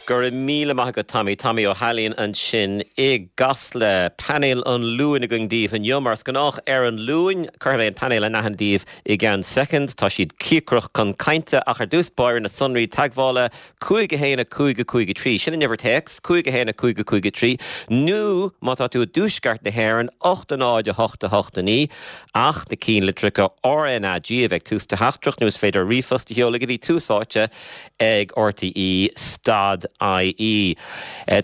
Go raibh míle maith agat Tommy. Tommy Ó hAilín ansin i gCasla. Painéal an Luain againn daoibh inniu. Mar is gnách ar an Luan, cuirfidh mé an painéal in aithne daoibh i gceann soicind. Tá siad cíocrach chun cainte ach ar dtús báire na sonraí teagmhála, 5 1 5 5 3, sin an uimhir téacs, 5 1 5 5 3, nó má tá tú i dtuaisceart na hÉireann, 8 0 8 8 9, ach na cinnlitreacha RnaG a bheith ag tús do theachtaireacht nó is féidir ríomhphost a sheoladh go dtí Tús Áite ag RTÉ dot IE.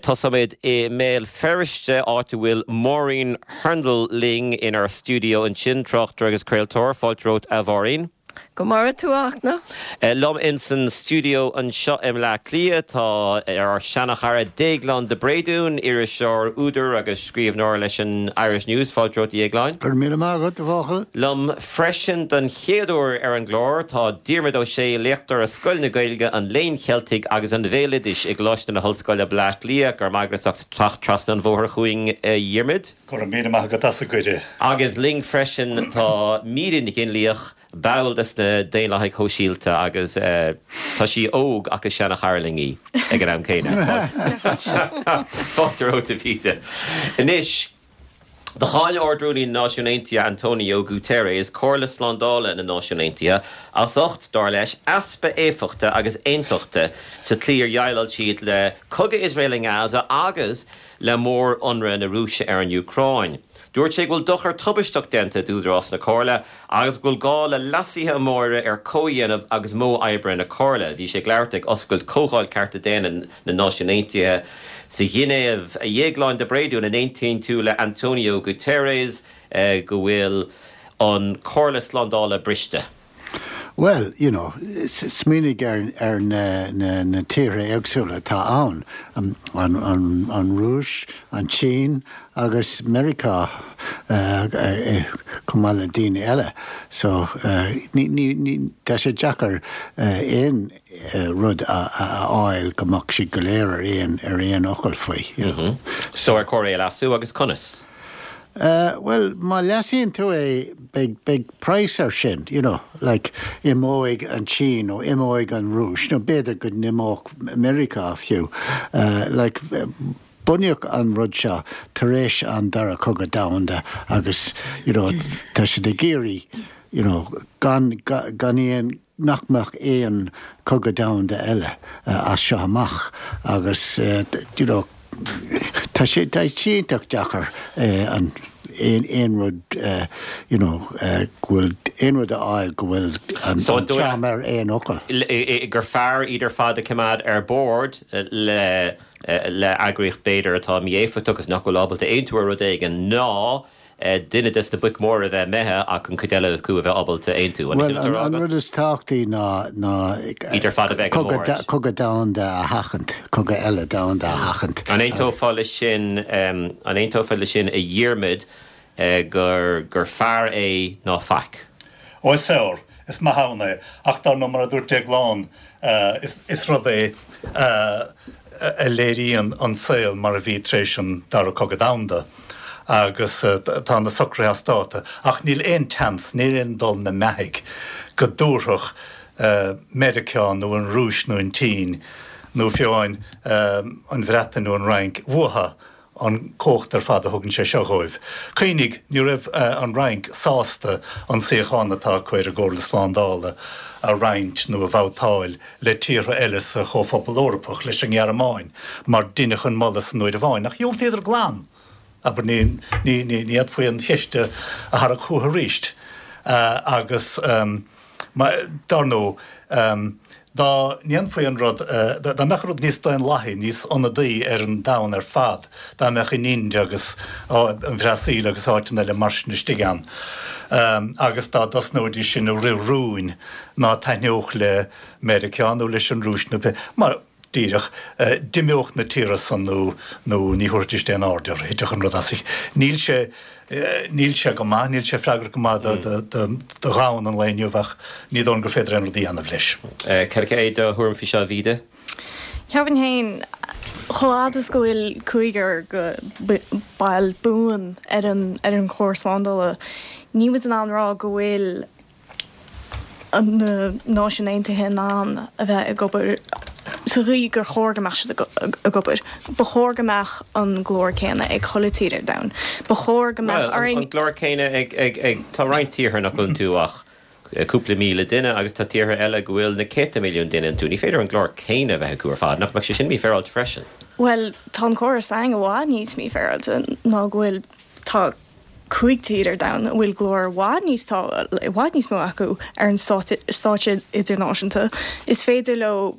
Tosóimid i mBéal Feirste, áit a bhfuil Máirín Hurndall linn inár stiúideo ansin, tráchtaire agus craoltóir. Fáilte romhat, a Mháirín. Go maire tú, a Fhachtna. Liom insan stiúideo anseo i mBleá Cliath tá ár seanachara Déaglán de Bréadún, iriseoir, údar agus scríbhneoir leis an Irish News. Fáilte romhat, a Dhéagláin. Go raibh míle maith agat, a bhuachaill. Liom freisin don chéad uair ar an gclár tá Diarmuid Ó Sé, léachtóir i Scoil na Gaeilge, an Léinn Cheiltigh agus an Bhéaloidis i gColáiste na hOllscoile, Bleá Cliath. Go raibh maith agat as ucht teacht trasna an bhóthair chugainn, a Dhiarmuid. Go raibh míle maith agat as an gcuireadh. Agus linn freisin tá Míde Nic Fhionnlaoich, ball des na Daonlathaigh Shóisialta agus tá sí óg ach is seana-chara linn í ag an am céanna. Fáilte romhat, a Mhíde. Anois, do cháin Ard-Rúnaí na Náisiún Aontaithe António Guterres Comhairle Slándála na Náisiún Aontaithe as ucht, dar leis, easpa éifeachta agus aontachta sa tslí ar dhéileáil siad le cogadh Iosrael i nGaza agus le mór-ionradh na Rúise ar an Úcráin. Dúirt sé go bhfuil dochar tubaisteach déanta d'údarás na Comhairle agus go bhfuil gá le leasuithe móra ar chomhdhéanamh agus modh oibre na Comhairle. Bhí sé ag labhairt ag oscailt Chomhdháil Cearta Daonna na Náisiún Aontaithe sa Ghinéiv. A Dhéagláin de Bréadún, an aontaíonn tú le António Guterres go bhfuil an Chomhairle Slándála briste? Bhuel, you know, smaoinigh ar na tíortha éagsúla atá ann, an Rúis, an tSín agus Meiriceá chomh maith le daoine eile. So, ní, tá sé deacair aon rud a fháil go mbeadh siad go léir ar aon, ar aon fhocal faoi, you know. So ar chóir é a leasú agus conas? Bhuel, má leasaíonn tú é, beidh, beidh praghas air sin, you know, like, imeoidh an tSín nó imeoidh an Rúis nó b'fhéidir go n-imeodh Meiriceá fiú. Like, bunaíodh an rud seo tar éis an Dara Cogadh Domhanda agus, you know, tá siad ag iarraidh, you know, gan, gan aon, nach mbeadh aon chogadh domhanda eile as seo amach agus you know tá sé tá sé iontach deacair an aon aon rud you know go bhfuil aon rud a fháil go bhfuil an So an dóigh dream ar aon fhocal. gur fearr iad ar fad a choimeád ar bord le le eagraíocht b'fhéidir atá mí-éifeachtach agus nach bhfuil ábalta aontú ar rud éigin ná duine des na boic mhóra a bheith imithe ach an chuid eile acu a bheith ábalta aontú. An Bhuel, an rud is tábhachtaí ná ná iad ar fad a bheith ag an mbord. cogadh domhanda a sheachaint, cogadh eile domhanda a sheachaint. An aontófá leis sin, an aontófá leis sin a Dhiarmaid, gur gur fearr é ná faic? Ó is fearr, is maith ann é, ach dar ndóigh mar a dúirt Déaglán, is rud é a léiríonn an saol mar a bhí tar éis an Dara Cogadh Domhanda agus tá na socruithe as dáta ach níl aon tseans, níl aon dul na mbeathaigh go dtabharfadh Meiriceá nó an Rúis nó an tSín nó fiú amháin an Bhreatain nó an Fhrainc uathu an cumhacht ar fad a thugann sé seo dhóibh. Cuimhnigh, ní raibh an Fhrainc sásta an suíochán atá acu ar an gComhairle Slándála a roinnt nó a bhabhtáil le tíortha eile sa Chomhphobal Eorpach, leis an nGearmáin, mar deineadh an moladh san uair amháin, ach dhiúltaíodar glan! Abair, ní, ní, ní fhéadfaí an cheist a tharrac chucu arís. Agus, dar ndóigh, Dá ndéanfaí an rud, dá mbeadh an rud níos daonlathaí, níos ionadaí ar an domhan ar fad, dá mbeadh an Ind agus an Bhrasaíl agus áiteanna eile mar sin istigh ann, agus dá dtosnóidís sin ag rith rúin ná taitneodh le Meiriceá nó leis an Rúis nó pé, mar, díreach, d'imeodh na tíortha san nó nó ní thabharfaidís aon aird orthu, thitfeadh an rud as a, níl sé. Níl sé go maith, níl sé freagrach go maith do dhomhan an lae inniu ach ní dóigh liom gur féidir aon rud a dhéanamh leis. Cad é do thuairim faoi seo, a Mhíde? Cheapfainn féin, chomh fhad is go bhfuil cúigear de baill buan ar an ar an Chomhairle Slándála, níl muid in ann rá go bhfuil na Náisiúin Aontaithe in ann a bheith ag obair. Sa gcaoi gur chóir go mbeadh siad ag obair, ba chóir go mbeadh an glór céanna ag chuile tír ar domhan. Ba chóir go mbeadh orainn. Bhuel, an glór céanna ag, ag, ag, tá roinnt tíortha nach bhfuil iontu ach cúpla míle duine agus tá tíortha eile go bhfuil na céadta milliún duine iontu. Ní féidir an glór céanna a bheith acu ar fad. Nach mbeadh sé sin mífhéaráilte freisin? Bhuel, tá an córas s'againn i bhfad níos mífhéaráilte ná go bhfuil, tá 5 tír ar domhan a bhfuil glór i bhfad níos tá i bhfad níos mó acu ar an stáitse idirnáisiúnta. Is féidir leo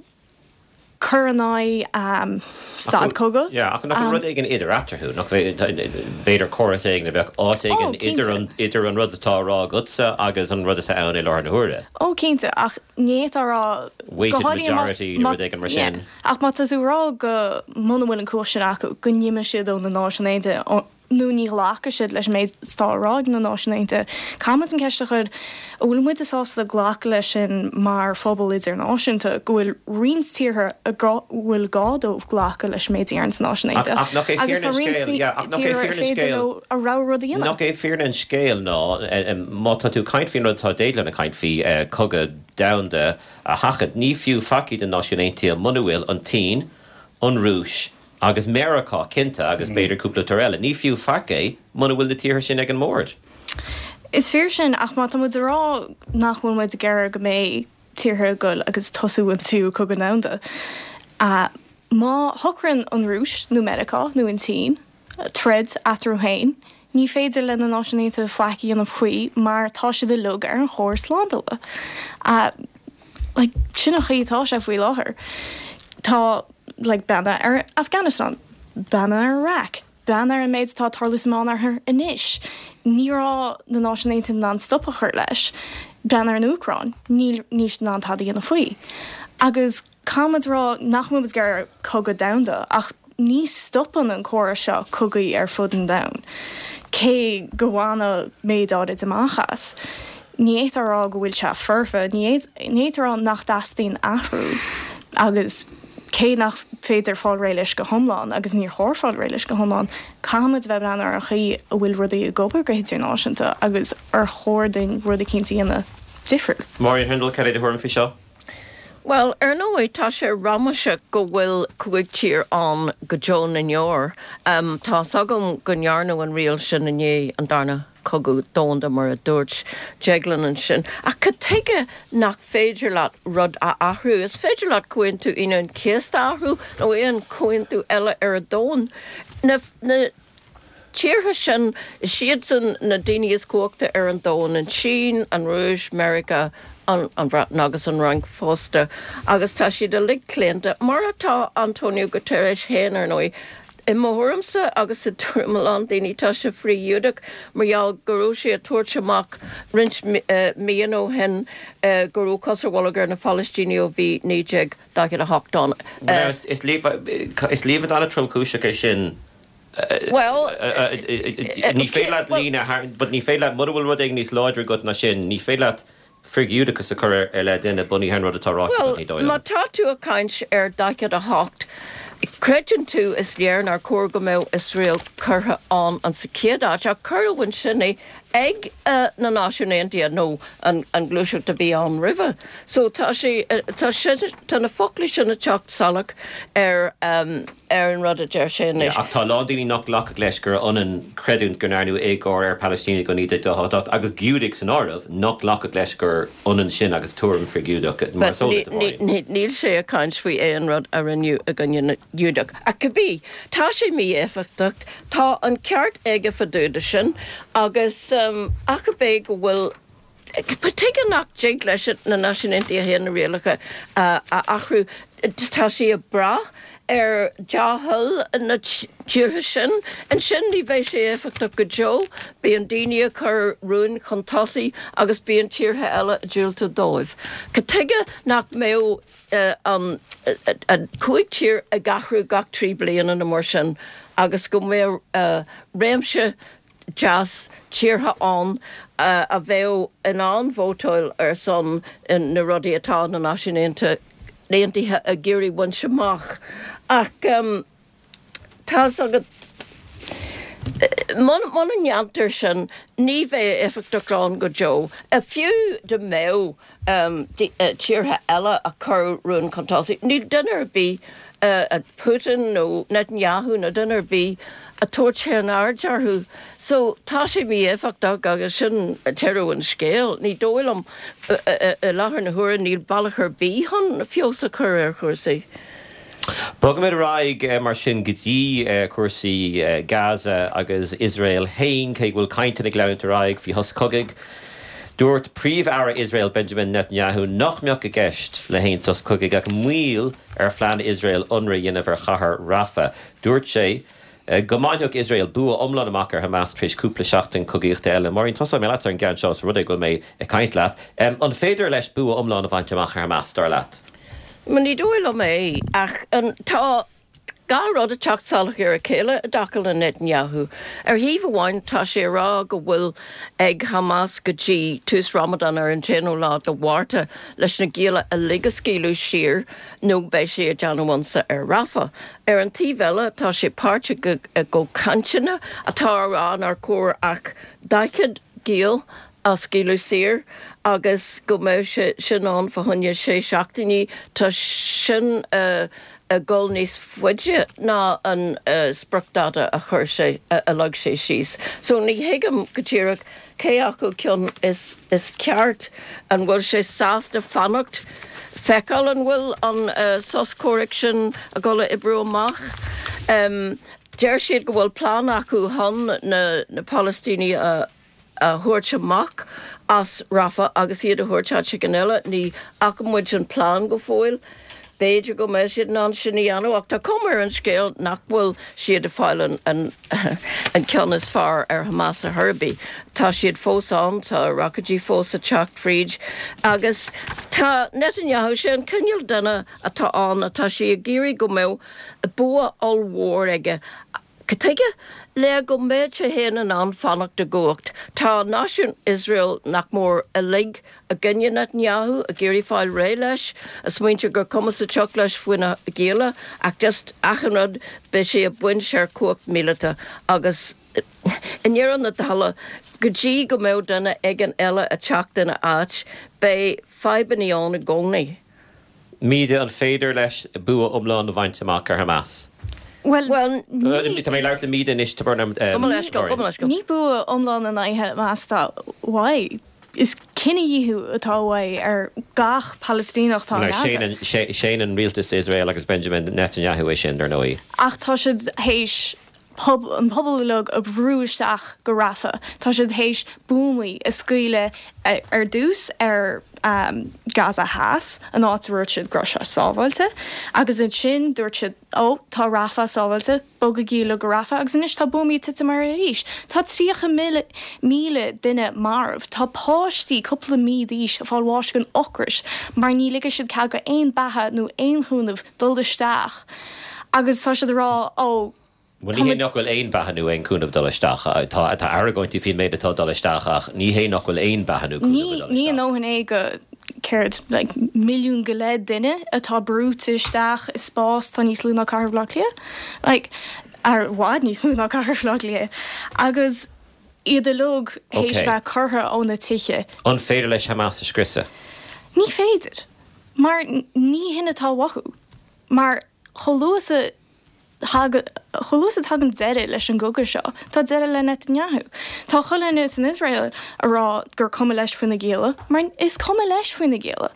cur in aghaidh stad cogaidh. Yeah, ach nach bhfuil rud éigin idir eatarthu? Nach b'fhéidir córas éigin a bheadh áit éigin idir an idir an rud atá á rá agatsa agus an rud atá ann i láthair na huaire? Ó, cinnte, ach ní fhéadfá a rá Weighted majority nó rud éigin mar sin. Ach má tá tú ag rá go muna bhfuil an cumhacht sin acu, go n-imeoidh siad ó na Náisiúin Aontaithe, nó ní ghlacfaidh siad leis an méid atá á rá ag na Náisiúin Aontaithe. Caithfimid an ceist a chur, an bhfuil muide sásta glacadh leis sin mar phobal idirnáisiúnta, go bhfuil roinnt tíortha a bhfuil gá dóibh glacadh leis an méid a deireann na Náisiúin Aontaithe, Ach nach é agus fírinne tá an roinnt scéil, yeah, ach nach é tíortha ar fírinne an féidir scéil, leo a rogha rud a dhéanamh. nach é fírinne an scéil ná, má tá tú ag caint faoin rud atá Déaglán ag caint faoi, cogadh domhanda a sheachaint, ní fiú faic iad na Náisiúin Aontaithe muna bhfuil an tSín, an Rúis, Agus Meiriceá, cinnte, agus b'fhéidir cúpla tír eile. Ní fiú faic é muna bhfuil na tíortha sin ag an mbord. Is fíor sin, ach má tá muid ag rá nach bhfuil muid ag iarraidh go mbeidh tíortha ag goil agus tosú an tríú cogadh domhanda, má shocraíonn an Rúis nó Meiriceá nó an tSín troid eatarthu féin, ní féidir le na Náisiúin Aontaithe faic a dhéanamh faoi mar tá siad uilig ar an chóras slándála. Like, sin an chaoi atá sé faoi láthair. Tá, like, breathnaigh ar Afghanistan, breathnaigh ar Iraq, breathnaigh ar an méid atá ag tarlú sa Meánoirthear anois. Ní raibh na Náisiúin Aontaithe in ann stop a chur leis. Breathnaigh ar an Úcráin, níl, níl siad in ann tada a dhéanamh faoi. Agus caithfimid a rá nach bhfuil muid ag iarraidh cogadh domhanda ach Ní stopann an córas seo cogaí ar fud an domhain, cé go bhaineadh méid áirid amach as. Ní fhéadfá a rá go bhfuil sé foirfe, ní fhéadfá a rá nach dteastaíonn athrú agus cé nach féidir fáil réidh leis go hiomlán, agus níor chóir fáil réidh leis go hiomlán, caithfimid a bheith ag breathnú ar an chaoi a bhfuil rudaí ag obair go hidirnáisiúnta agus ar chóir dúinn rud eicínt a dhéanamh difriúil. Máirín Hurndall, cad é do thuairim faoi seo? Bhuel, ar ndóigh, tá sé ramaseach go bhfuil 5 tír ann go deo na ndeor. Tá's agam go ndearnadh an riail sin i ndiaidh an Darna Cogadh Domhanda, mar a dúirt Déaglán ansin. Ach cad tuige nach féidir leat rud a athrú? Is féidir leat Comhaontú Aoine an Chéasta a athrú, nó aon chomhaontú eile ar an domhan. Na. tíortha sin, is iadsan na daoine is cumhachta ar an domhan, an tSín, an Rúis, Meiriceá, an Bhreatain agus an Fhrainc fosta, agus tá siad uilig claonta, mar atá António Guterres féin, ar ndóigh. I mo thuairimse, agus i dtuairim a lán daoine, tá sé frith-Ghiúdach mar gheall go raibh sé ag tabhairt amach roinnt míonna ó shin go raibh cos ar bholg ar na Palaistínigh ó bhí 1948 ann. Is líomhain an-tromchúiseach é sin. Bhuel, ní féidir leat líne a tharraingt, but ní féidir leat, mura bhfuil rud éigin níos láidre agat ná sin, ní féidir leat frith-Ghiúdachas a chur i leith duine bunaithe ar an rud atá ráite agat, ní dóigh liom. Bhuel, má tá tú ag caint ar 48, creideann tú, is léir nár chóir go mbeadh Iosrael curtha ann an sa chéad áit, ach cuireadh ansin é ag na Náisiúin Aontaithe nó an ghluaiseacht a bhí ann roimhe. So tá sé, tá sé, tá na foclaí sin ag teacht salach ar ar an rud a deir sé anois. Ach tá a lán daoine nach nglacfadh leis gur ionann creidiúint go ndearnadh éagóir ar Phalaistínigh ó 1948, agus Giúdaigh san áireamh, nach nglacfadh leis gur ionann sin agus tuairim frith-Ghiúdach, mar is eol duit, a Mháirín. Níl sé ag caint faoi aon rud a rinneadh i gcoinne na nGiúdach. Ach cibé, tá sé mí-éifeachtach, tá an ceart aige fá dtaobh de sin, agus ach ab é go bhfuil Tuige nach dtig leis na Náisiúin Aontaithe féin na rialacha a athrú? Tá sí ag brath ar dea-thoil na tíortha sin. Ansin ní bheidh sé éifeachtach go deo. Bíonn daoine ag cur rúin chun tosaigh agus bíonn tíortha eile ag diúltú dóibh. Cad tuige nach mbeadh an 5 tír ag athrú gach 3 bliana nó mar sin agus go mbeadh réimse deas tíortha ann a bheadh in ann vótáil ar son na rudaí atá na Náisiúin Aontaithe ag iarraidh bhaint amach. Ach tá's agat, muna ndéantar sin, ní bheidh éifeachtacht ann go deo. Fiú dá mbeadh. Tíortha eile a chur rún chun tosaigh. Níl duine ar bith, Putin nó Netanyahu nó duine ar bith, ag tabhairt aon aird orthu. So tá sé mí-éifeachtach agus sin deireadh an scéil. Ní dóigh liom, i láthair na huaire, níl bealach ar bith chun feabhas a chur ar chúrsaí. Bogfaimid ar aghaidh mar sin go dtí cúrsaí Gaza agus Iosrael féin, cé go bhfuil cainteanna ag leanúint ar aghaidh faoi shos cogaidh. Dúirt Príomh-Aire Iosrael Benjamin Netanyahu nach mbeadh i gceist le haon sos cogaidh ach moill ar phlean Iosrael ionradh a dhéanamh ar chathair Rafah. Dúirt sé go mbainfeadh Iosrael bua iomlán amach ar Hamas tar éis cúpla seachtain cogaíochta eile. Máirín, tosóidh mé leat ar an gceann seo, os rud é go bhfuil mé ag caint leat. An féidir leis bua iomlán a bhaint amach ar Hamas, dar leat? Ní dóigh liom é, ach tá gach rud ag teacht salach ar a chéile i dtaca le Netanyahu. Ar thaobh amháin, tá sé ag rá go bhfuil ag Hamas go dtí tús Ramadan ar an t-aonú lá de Mhárta leis na gialla uilig a scaoileadh saor nó beidh sé ag déanamh ionsaí ar Rafah. Ar an taobh eile, tá sé páirteach i gcomhchainteanna atá á rá nár chóir ach 40 giall a scaoileadh saor agus go mbeadh sé sin ann fá choinne sé seachtainí. Tá sin ag dul níos faide ná an spriocdháta a chuir sé, a leag sé síos. So ní thuigim go díreach cé acu ceann is ceart. An bhfuil sé sásta fanacht, feiceáil an bhfuil an sos comhraic sin ag dul a oibriú amach? Deir siad go bhfuil plean acu chun na Palaistínigh a a thabhairt amach as Rafah agus iad a thabhairt áit éigin eile. Ní fhaca muid an plean go fóill. B'fhéidir go mbeidh siad in ann sin a dhéanamh ach tá cuma ar an scéal nach bhfuil siad ag fáil an ceann is fearr ar Hamas ar chor ar bith. Tá siad fós ann, tá roicéidí fós ag teacht fríd agus tá Netanyahu, sé an cineál duine atá ann, atá sé ag iarraidh go mbeadh bua ollmhór aige. Cad tuige? Le go mbeadh sé féin in ann fanacht i gcumhacht. Tá náisiún Iosrael nach mór uilig i gcoinne Netanyahu, ag iarraidh fáil réidh leis, ag smaointiú gur cuma sa tsioc leis faoi na gialla, ach just achan rud, beidh sé ag baint ar chumhacht míleata agus i ndeireadh na dála, go dtí go mbeadh duine éigin eile ag teacht ina áit, beidh fadhbanna ann i gcónaí. Míde, an féidir leis bua iomlán a bhaint amach ar Hamas? Bhuel, ní. Tá mé ag labhairt le Míde anois, tá brón orm, Gabh mo leithscéal, gabh mo leithscéal. Ní bua iomlán in aghaidh Hamas atá uaidh. Is cinedhíothú atá uaidh ar gach Palaistíneach atá i nGaza. Séanann rialtas Iosrael agus Benjamin Netanyahu é sin, dar ndóigh. Ach tá siad théis an pobal uilig a bhrú isteach go Rafah. Tá siad théis buamaí a scaoileadh ar dtús ar Gaza Theas, an áit a ndúirt siad go raibh sé sábháilte, agus ansin dúirt siad, ó, tá Rafah sábháilte, bogaigí uilig go Rafah, agus anois tá buamaí ag titim air arís. Tá 30,000 duine marbh, tá páistí cúpla mí d'aois ag fáil bháis den ocras mar ní ligfidh siad cead go aon beatha nó aon chúnamh dul isteach agus tá siad ag rá, ó, Bhuel, ní hé nach bhfuil aon bheatha nó aon chúnamh ag dul isteach. Tá tá argóintí faoin méid atá ag dul isteach ach ní hé nach bhfuil aon bheatha nó cúnamh ag dul Ní a isteach. ndóthain é go, céard, like, milliún go leith duine atá brúite isteach i spás atá níos lú ná cathair Bhaile Átha Cliath, like, ar i bhfad níos mó ná cathair Bhaile Átha Cliath, agus iad uilig théis Ok. bheith curtha óna tithe. An féidir leis Hamas a scriosadh? Ní féidir. Mar ní hin atá uathu. Mar chomh luath is a thagann, chomh luath is a thagann deireadh leis an gcogadh seo, tá deireadh le Netanyahu. Tá chuile dhuine san Iosrael a rá gur cuma leis faoi na gialla, mar is cuma leis faoi na gialla.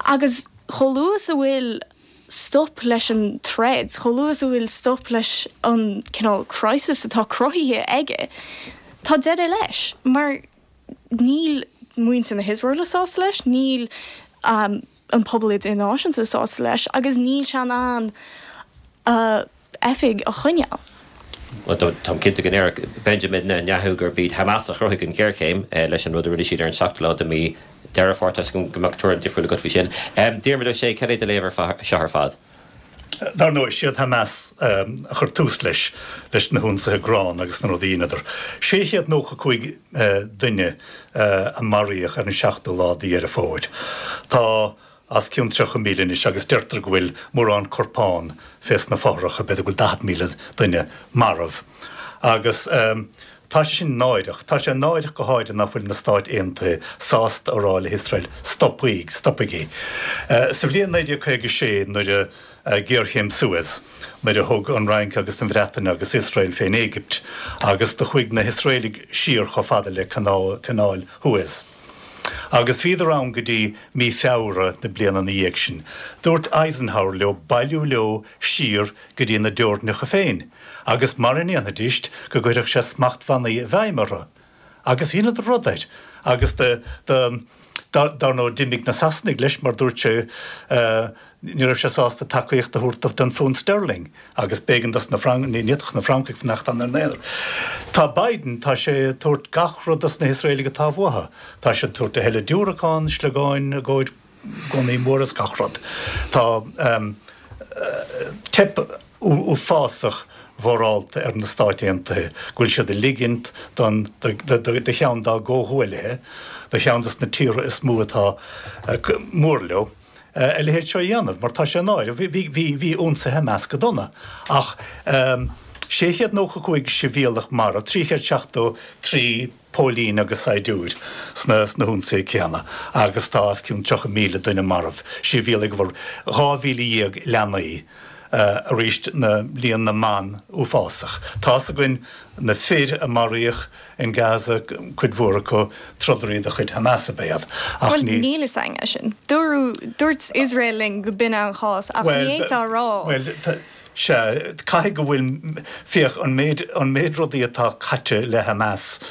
Agus chomh luath is a bhfuil stop leis an troid, chomh luath is a bhfuil stop leis an cineál crisis atá cruthaithe aige, tá deireadh leis. Mar níl muintir na hIosraeile sásta leis, níl an pobal idirnáisiúnta sásta leis agus níl sé in ann a oifig a choinneáil. Bhuel, táim cinnte go ndéarfadh Benjamin Netanyahu gurb iad Hamas a chruthaigh an ghéarchéim leis an rud a rinne siad ar an seachtú lá de mhí Deireadh Fómhair. Tá a fhios agam go mbeadh tuairim difriúil agat faoi sin. Diarmuid Ó Sé, cad é do léamh ar seo ar fad? Dar ndóigh, siad Hamas a chuir tús leis, leis na hionsaithe gránna agus na rudaí a dheineadar. 695 duine a maraíodh ar an seachtú lá de Dheireadh Fómhair. Tá os cionn 30,000 anois agus deirtear go bhfuil mórán corpán fés na fothracha, b'fhéidir go bhfuil 40,000 duine marbh. Agus. Tá sé sin náireach. Tá sé náireach go háirithe nach bhfuil na Stáit Aontaithe sásta a rá le hIosrael, stopaigí, stopaigí. Sa bhliain 1956 nuair a, géarchéim Suez, nuair a thug an Fhrainc agus an Bhreatain agus Iosrael fén Éigipt agus do chuaigh na hIosraelaigh siar chomh fada le Canáil Shuez. Agus bhíodar ann go dtí mí Feabhra na bliana ina dhiaidh sin. Dúirt Eisenhower leo bailiú leo siar go dtí na dteorainneacha féin agus mara ndéanfaidíst go gcuirfeadh sé smachtbhannaí i bhfeidhm orthu. Agus dheineadar rud air. Agus do, do, dar ndóigh d'imigh na Sasanaigh leis mar dúirt sé ní raibh sé sásta tacaíocht a thabhairt don phunt sterling agus b'éigean dos na Franc, ní fhéadfadh na Francaigh fanacht ann ina n-aonar. Tá Biden, tá sé ag tabhairt gach rud dos na hIosraelaigh atá uathu. Tá sé ag tabhairt a thuilleadh diúracán, sliogáin i gcomhair gunnaí móra is gach rud. Tá teip uafásach mhorálta ar na Stáit Aontaithe go bhfuil siad ag ligint don do cheann dá gcomhghuaillithe, do cheann dos na tíortha is mó atá mór leo, a leithéid seo a dhéanamh, mar tá sé náireach. Bhí bhí ionsaithe Hamas go dona ach 695 sibhialtach marbh, 373 póilín agus saighdiúir sna sna hionsaithe céanna agus tá os cionn 30,000 duine marbh, sibhialaigh, 12,000 leanaí, arís na líon na mban uafásach. Tá's againn na fir a maraíodh in Gaza, cuid mhór acu trodairí de chuid Hamas ab ea iad ach ní. Bhuel níl fhios againn é sin. Dúradh, dúirt Iosrael linn go b'in an chás ach ní fhéadfá a rá. Bhuel, Sea, caithfidh go bhfuil, féach, an méid, an méid rudaí atá caite le Hamas,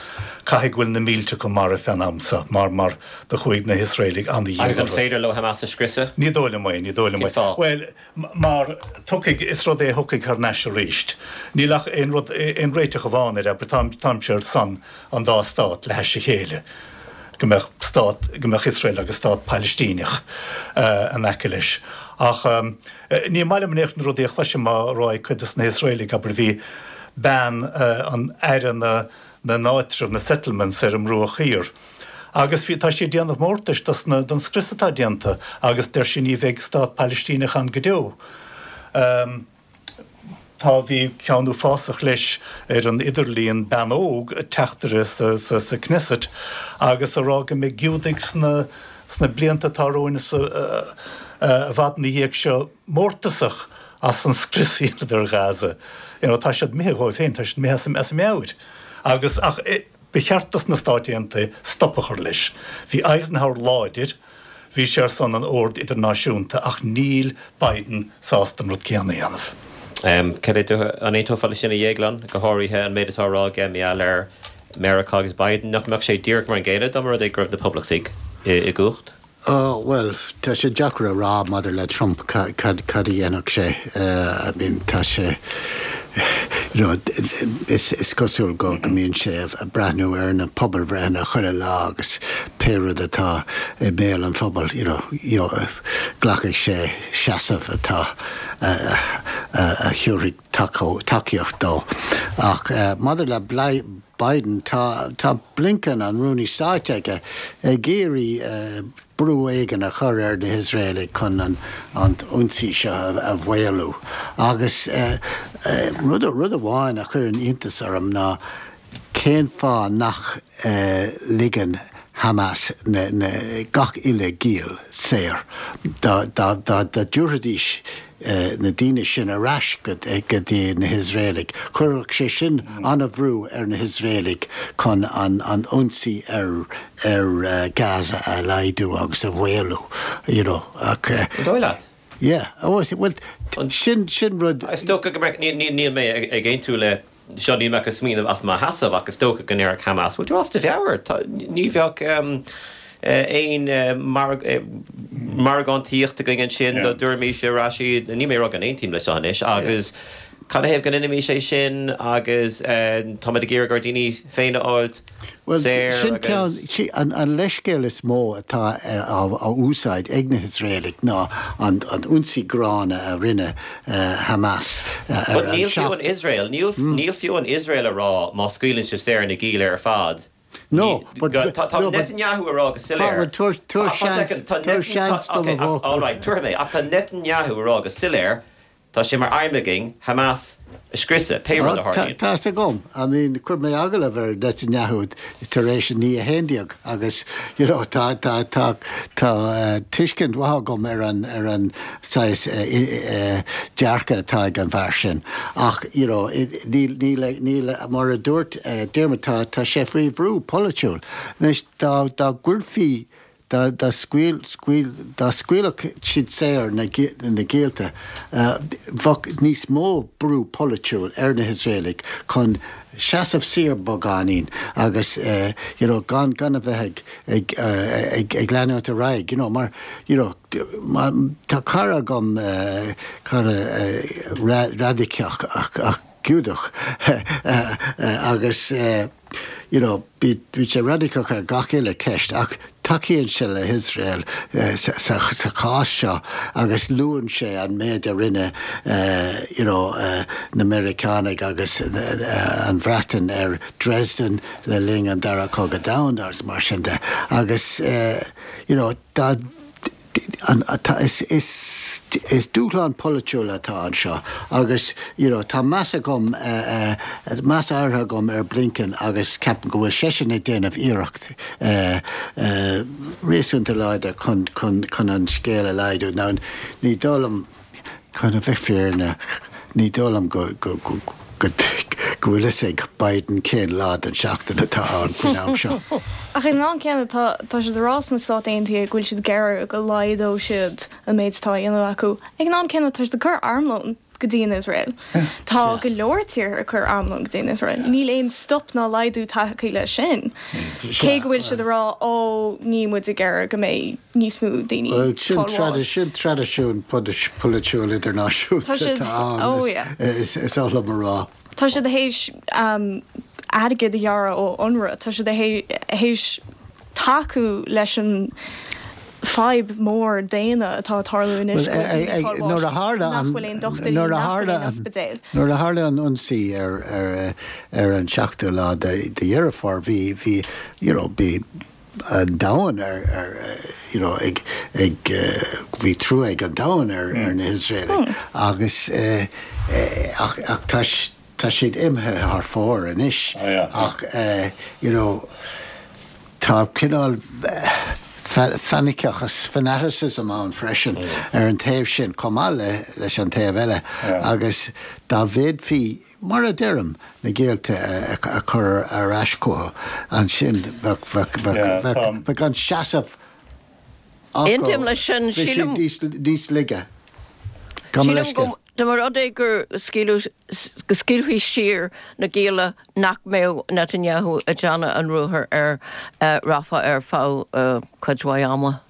caithfidh go bhfuil na mílte acu marbh fén am seo, mar, mar do chuaigh na hIosraelaigh an-dhian Agus an orthu. féidir leo Hamas a scriosadh? Ní dóigh liom é, ní dóigh liom é. Cén fáth? Bhuel, mar tiocfaidh, is rud é a thiocfaidh thar n-ais arís. Níl ach aon rud, aon réiteach amháin air, abair, táim, táimse ar son an dá stát le hais a chéile, go mbeadh stát, go mbeadh Iosrael agus stát Pailistíneach in aice leis. Ach. Ní maith liom in aon chor na rudaí a chloisim á rá ag cuid de na hIosraelaigh, abair, bhí bean an aire na n-áitreabh, na settlements, ar an mBruach Thiar agus bhí, tá sí ag déanamh mórtais dos na, don scrios atá déanta agus deir sí ní bheidh stát Pailistíneach ann go deo. Tá, bhí ceann uafásach leis ar an idirlíon, bean óg, teachtaire sa, sa, sa Knesset agus a rá go mbeidh Giúdaigh sna, sna blianta atá romhainn is i bhfad ina dhiaidh seo mórtasach as an scrios a dheineadar ar Ghaza. You know, tá siad imithe dhóibh féin, tá siad imithe as a meabhair. Agus, ach ba cheart dos na Stáit Aontaithe stop a chur leis. Bhí Eisenhower láidir, bhí sé ar son an oird idirnáisiúnta ach níl Biden sásta an rud céanna a dhéanamh. Cad é do, an aontófá leis sin a Dhéagláin, go háirithe an méid atá á rá aige mar gheall ar Meiriceá agus Biden, nach mbeadh sé díreach mar an gcéanna dá mba rud é go raibh na Poblachtaigh i gcumhacht? Ó, bhuel, tá sé deacair a rá maidir le Trump cad a dhéanfadh sé. I mean, tá sé, you know, is cosúil go mbíonn sé ag breathnú ar na pobalbhreitheanna chuile lá agus pé rud atá i mbéal an phobail, you know, glacfaidh sé seasamh atá, a thabharfaidh tacaíocht dó. Ach maidir le Biden, tá Blinken, an Rúnaí Stáit aige, ag iarraidh brú éigin a chur ar na hIosraelaigh chun an t-ionsaí seo a mhaolú. Agus rud amháin a chuireann iontas orm ná cén fáth nach ligeann Hamas gach uile ghiall saor? Dá dtabharfaidís na daoine sin ar ais go dtí na hIosraelaigh, chuirfeadh sé sin an-bhrú ar na hIosraelaigh chun an ionsaí ar Gaza a laghdú agus a mhaolú, you know. Ach. An dóigh leat? Yeah. Bhuel, sin, sin rud. Is dócha go mbeadh, níl mé ag aontú le seo, níl mé ach ag smaoineamh as mo sheasamh ach is dócha go ndéarfadh Hamas, bhfuil tú as do mheabhair? Ní bheadh aon margántaíocht againn ansin dá dtabharfaimis ar ais iad, níl mé ag rá go n-aontaím leis seo anois, agus cad ina thaobh go ndéanfaimis é sin agus táimid ag iarraidh ár ndaoine féin a fháilt Bhuel, sin ceann, an leithscéal is mó atá á úsáid ag na hIosraelaigh ná an ionsaí gránna a rinne Hamas ar an But níl fiú an Iosrael, níl fiú an Iosrael a rá má scaoileann sibh saor na gialla ar fad, No, but, tá Netanyahu a rá go soiléir. Tabhair seans, tabhair seans dom a All right, tabharfaidh mé, ach tá Netanyahu a rá go soiléir. Tá sé mar aidhm againn Hamas a scriosadh, pé rud a tharlaíonn. Tá fhios agam. I mean, chuir mé agallamh ar Netanyahu tar éis an 11 agus, you know, tá, tá, tá, tá tuiscint mhaith agam ar an, ar an saghas dearcadh atá ag an bhfear sin. Ach, you know, níl, níl, níl, mar a dúirt Diarmuid, tá, tá sé faoi bhrú polaitiúil. Anois, dá, dá gcuirfí Dá scaoilfeadh siad saor na giallta, bheadh níos mó brú polaitiúil ar na hIosraelaigh chun seasamh siar beagáinín agus you know gan gan a bheith ag ag ag leanúint ar aghaidh you know mar you know tá cara agam cara raidiceach ach Giúdach agus you know bíonn sé raidiceach ar gach uile ceist ach tacaíonn sé le hIosrael sa chás seo agus luann sé an méid a rinne you know na Meiriceánaigh agus an Bhreatain ar Dresden le linn an Dara Cogadh Domhanda agus mar sin de agus you know dá Is dúshlán polaitiúil atá anseo agus you know tá meas agam, meas áirithe agam ar Blinken agus ceapaim go bhfuil seisean ag déanamh iarracht réasúnta láidir chun chun an scéal a laghdú. Now ní dóigh liom, Chun a bheith fírinneach, ní dóigh liom go go bhfuil fhios ag Biden cén lá den seachtain atá ann faoin am seo. Ach ag an am céanna, tá tá siad ag rá sna Stáit Aontaithe go bhfuil siad ag iarraidh go laghdódh siad an méid atá á dhéanamh acu. Ag an am céanna, tá siad ag cur armlón go dtí an Iosrael. Tá go leor tíortha ag cur armlón go dtí an Iosrael. Níl aon stop ná laghdú tagtha leis sin. Cé go bhfuil siad ag rá, ó, níl muid ag iarraidh go mbeidh. níos mó daoine Bhuel, sin fáil bháis. sin traidisiún polaitiúil idirnáisiúnta Tá siad, atá ann, oh yeah. is is oth liom a rá. Tá siad théis airgead a ghearradh ó UNRWA, tá siad théis tacú leis an fadhb mór daonna atá ag tarlú anois, go bhfuil daoine ag fáil bháis, Nuair a tharla nach an, bhfuil aon dochtúirí, nuair a nach bhfuil tharla aon an, ospidéil. nuair a tharla an ionsaí ar ar ar an seachtú lá de de Dheireadh Fómhair, bhí bhí you know bhí an domhan ar ar you know ag ag bhí trua ag an domhan ar ar na hIosraelaigh agus ach ach tá tá siad imithe thar fóir anois ach you know tá cineál fanaiceachas fanaticism ann freisin ar an taobh sin chomh maith le leis an taobh eile agus dá bhféadfaí Mar a deirim, na géillte a chur ar ais chucu, ansin bheadh an seasamh acu, Aontaím leis sin. bheadh Sílim. siad níos laige. Gabh mo Sílim leithscéal. go dá mba rud é gur scaoileadh, go scaoilfí siar na gialla nach mbeadh Netanyahu ag déanamh an ruathair ar Rafah ar feadh cuid mhaith ama.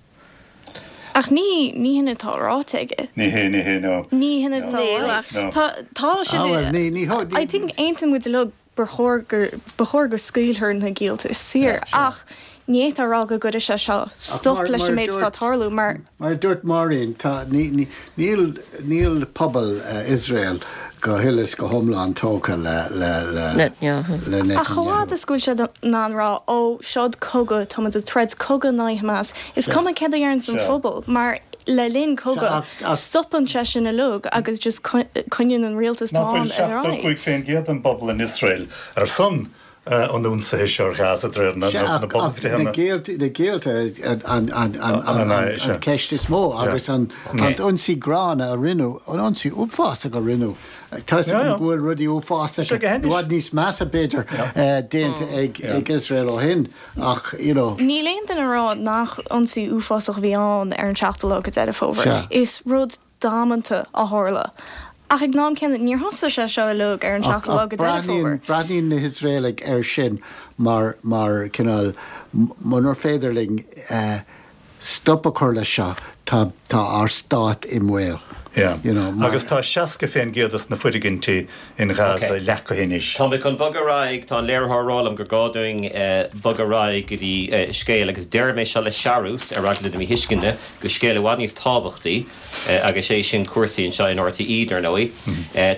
Ach ní, ní hin atá ráite aige. Ní hé, ní hé, no. Ní hin atá Níl ráite. ach. No. Tá, tá siad Ah, bhuel, ní, ní, ní. I think aontaíonn muid uilig gur chóir gur, ba chóir go scaoilfear na giallta saor ach ní fhéadfá a rá go gcuirfidh sé seo stop mar, leis mar an a méid atá dúirt, ag tarlú mar. Mar a dúirt Máirín, tá, ní, ní, níl, níl pobal Iosrael go huile is go hiomlán tógtha le, le, le, Netanyahu. le Ach chomh fhad Netanyahu. is go bhfuil siad in ann rá, ó, seod cogadh, tá muid ag troid cogadh in aghaidh Hamas, is cuma céard a deireanns an phobal, mar le linn cogadh, stopann sé sin uilig agus just coinníonn an rialtas Nach atá bhfuil ann ar aghaidh. 75% den bpobal in Iosrael ar son an ionsaithe seo ar Ghaza, de réir na Sea, ach na bpobalbhreitheanna? géillte an cheist is mó agus an t-ionsaí gránna a rinneadh, an ionsaí uafásach a rinneadh, tá 'fhios agam go bhfuil rudaí uafásacha, i bhfad níos measa b'fhéidir, déanta ag Iosrael ó shin ach, you know. Níl aon duine ag rá nach ionsaí uafásach a bhí ann ar an seachtú lá de Deireadh Fómhair. Is rud damanta a tharla. Ach ag an am céanna, níor thosaigh sé seo uilig ar an seachtú lá Ach de Deireadh Fómhair. breathnaíonn na hIosraelaigh air sin mar, mar cineál, munar féidir linn stop a chur leis seo, tá, tá ár stát i mbaol. Yeah. You know, mar. Agus tá 60% de na foirgintí in Gaza Ok. leacaithe anois. Tá mé chun bogadh ar aghaidh, tá an léiritheoir ag rá liom gur gá dúinn bogadh ar aghaidh go dtí scéal, agus déarfaidh mé seo le searús, ar eagla na míthuisceana, go scéal i bhfad níos tábhachtaí. agus é sin cúrsaí anseo in RTÉ, dar ndóigh.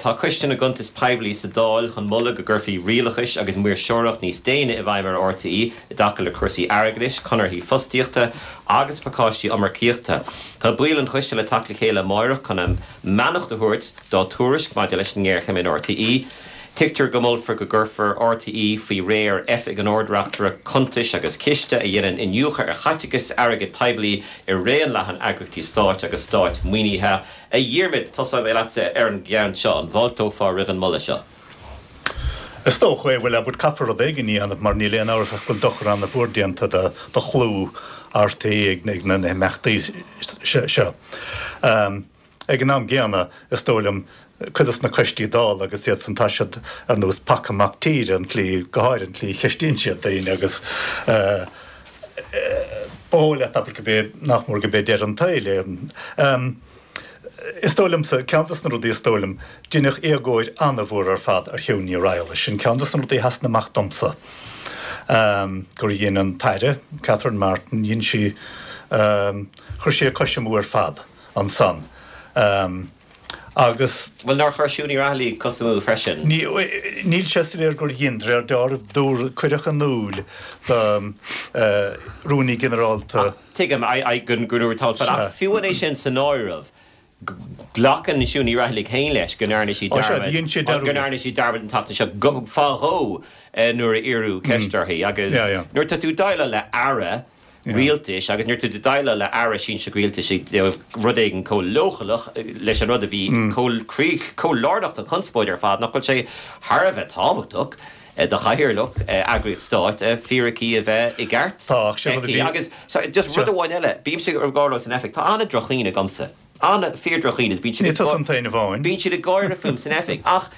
Tá Coiste na gCuntas Poiblí sa Dáil chun moladh go gcuirfí rialachas agus maoirseoireacht níos déine i bhfeidhm ar RTÉ i dtaca le cúrsaí airgeadais, conarthaí fostaíochta agus pacáistí iomarcaíochta. Tá baill an choiste le teacht le chéile amáireach chun a mbeannacht a thabhairt dá tuairisc maidir leis an ngéarchéim in RTÉ. Tuigtear go molfar go gcuirfear RTÉ faoi réir Oifig an Ard-Reachtaire Cuntais agus Ciste a dhéanann iniúchadh ar chaiteachas airgead poiblí i raon leathan eagraíochtaí stáit agus stát-mhaoinithe. A Dhiarmaid, tosóidh mé leatsa ar an gceann seo. An bhfáilteofá roimh an moladh seo? Is dócha é, bhuel, abair, caithfear rud éigin a dhéanamh mar níl aon amhras ach go bhfuil dochar an-mhór déanta do chlú RTÉ ag na himeachtaí seo. Ag an am gcéanna, is dóigh liom, cuid dos na coistí Dála agus iad san, tá siad ar nós paca mac tíre, an tslí, go háirithe an tslí a cheistíonn siad daoine agus ba dhóigh leat, abair, go b'é, nach mór go b'é deireadh an tsaoil é. Is dóigh liomsa, ceann dos na rudaí is dóigh liom, deineadh éagóir an-mhór ar fad ar Shiún Ní Raghallaigh, sin ceann dos na rudaí a sheasann amach domsa, gur dhein an tAire, Catherine Martin, dhein sí, chuir sí a cois amú ar fad. ansan agus. Bhuel, nár chuir Siún Ní Raghallaigh cos amú freisin? Níl sé soiléir gur dhein, de réir dealraimh, dúradh, cuireadh in iúl do Rúnaí Ginearálta. Tuigim, go ndúradh tamall fada, ach fiú amháin é sin san áireamh, glacann Siún Ní Raghallaigh féin leis go ndearna sí dearmad, go ndearna sí dearmad an tseachtain seo, go, fá dhó nuair a iarradh ceist uirthi agus nuair atá tú ag déileáil le Aire, rialtais agus nuair atá tú ag déileáil le aire sinsearach rialtais i dtaobh rud éigin chomh leochaileach leis an rud a bhí chomh chomh lárnach don chonspóid ar fad, nach bhfuil sé thar a bheith tábhachtach do chathaoirleach eagraíocht stáit fíricí a bheith i gceart aici. Agus just rud amháin eile, bímse ag rá leo san oifig, tá an-droch-chuimhne agamsa, an-fhíor-droch-chuimhne, bíonn siad ag bíonn siad ag gáire fúm san oifig ach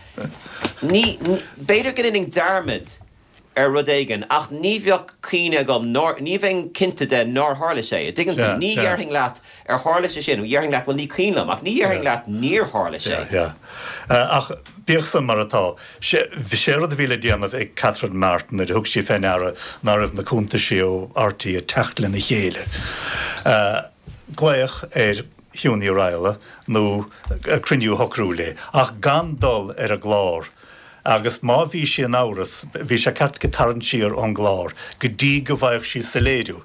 ní, b'fhéidir go ndéanfainn dearmad ar rud éigin, ach ní bheadh cuimhne agam nár, ní bheinn cinnte de nár tharla sé, an dtuigeann tú? Ní dhéarfainn leat ar tharla sé sin, dhéarfainn leat bhuel ní cuimhin liom, ach ní dhéarfainn leat níor tharla sé. Yeah, yeah. Ach bíodh san mar atá, sé, sé rud a bhí le déanamh ag Catherine Martin nuair a thug sí fé ndeara ná raibh na cuntaisí ó RTÉ ag teacht lena chéile, glaoch ar Shiún Ní Raghallaigh nó cruinniú a shocrú léi, ach gan dul ar an gclár. Agus má bhí sí in amhras, bhí sé ceart aici tarraingt siar ón gclár go dtí go bhfaigheadh sí soiléiriú.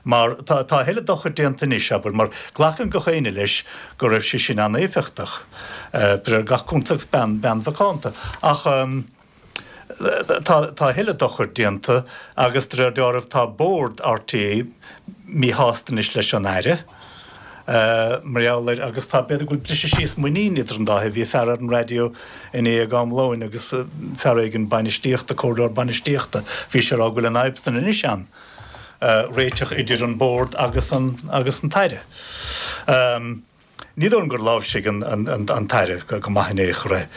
Mar tá a thuilleadh dochair déanta anois, abair, mar glacann gach éinne leis go raibh sí sin an-éifeachtach, de réir gach cuntas agus bean, bean mhacánta. Ach tá, tá a thuilleadh dochair déanta agus de réir dealraimh tá bord RTÉ míshásta anois leis an Aire. Mar gheall air, agus tá, b'fhéidir go bhfuil briseadh síos muinín idir an dá thaobh. Bhí fear ar an raidió inné ag am lóin agus fear éigin bainistíochta, comhairleoir bainistíochta, bhí sé ag rá go bhfuil an fhadhb san anois ann, réiteach idir an bord agus an, agus an tAire. Ní dóigh liom gur láimhsigh an, an, an tAire go maith in aon chor é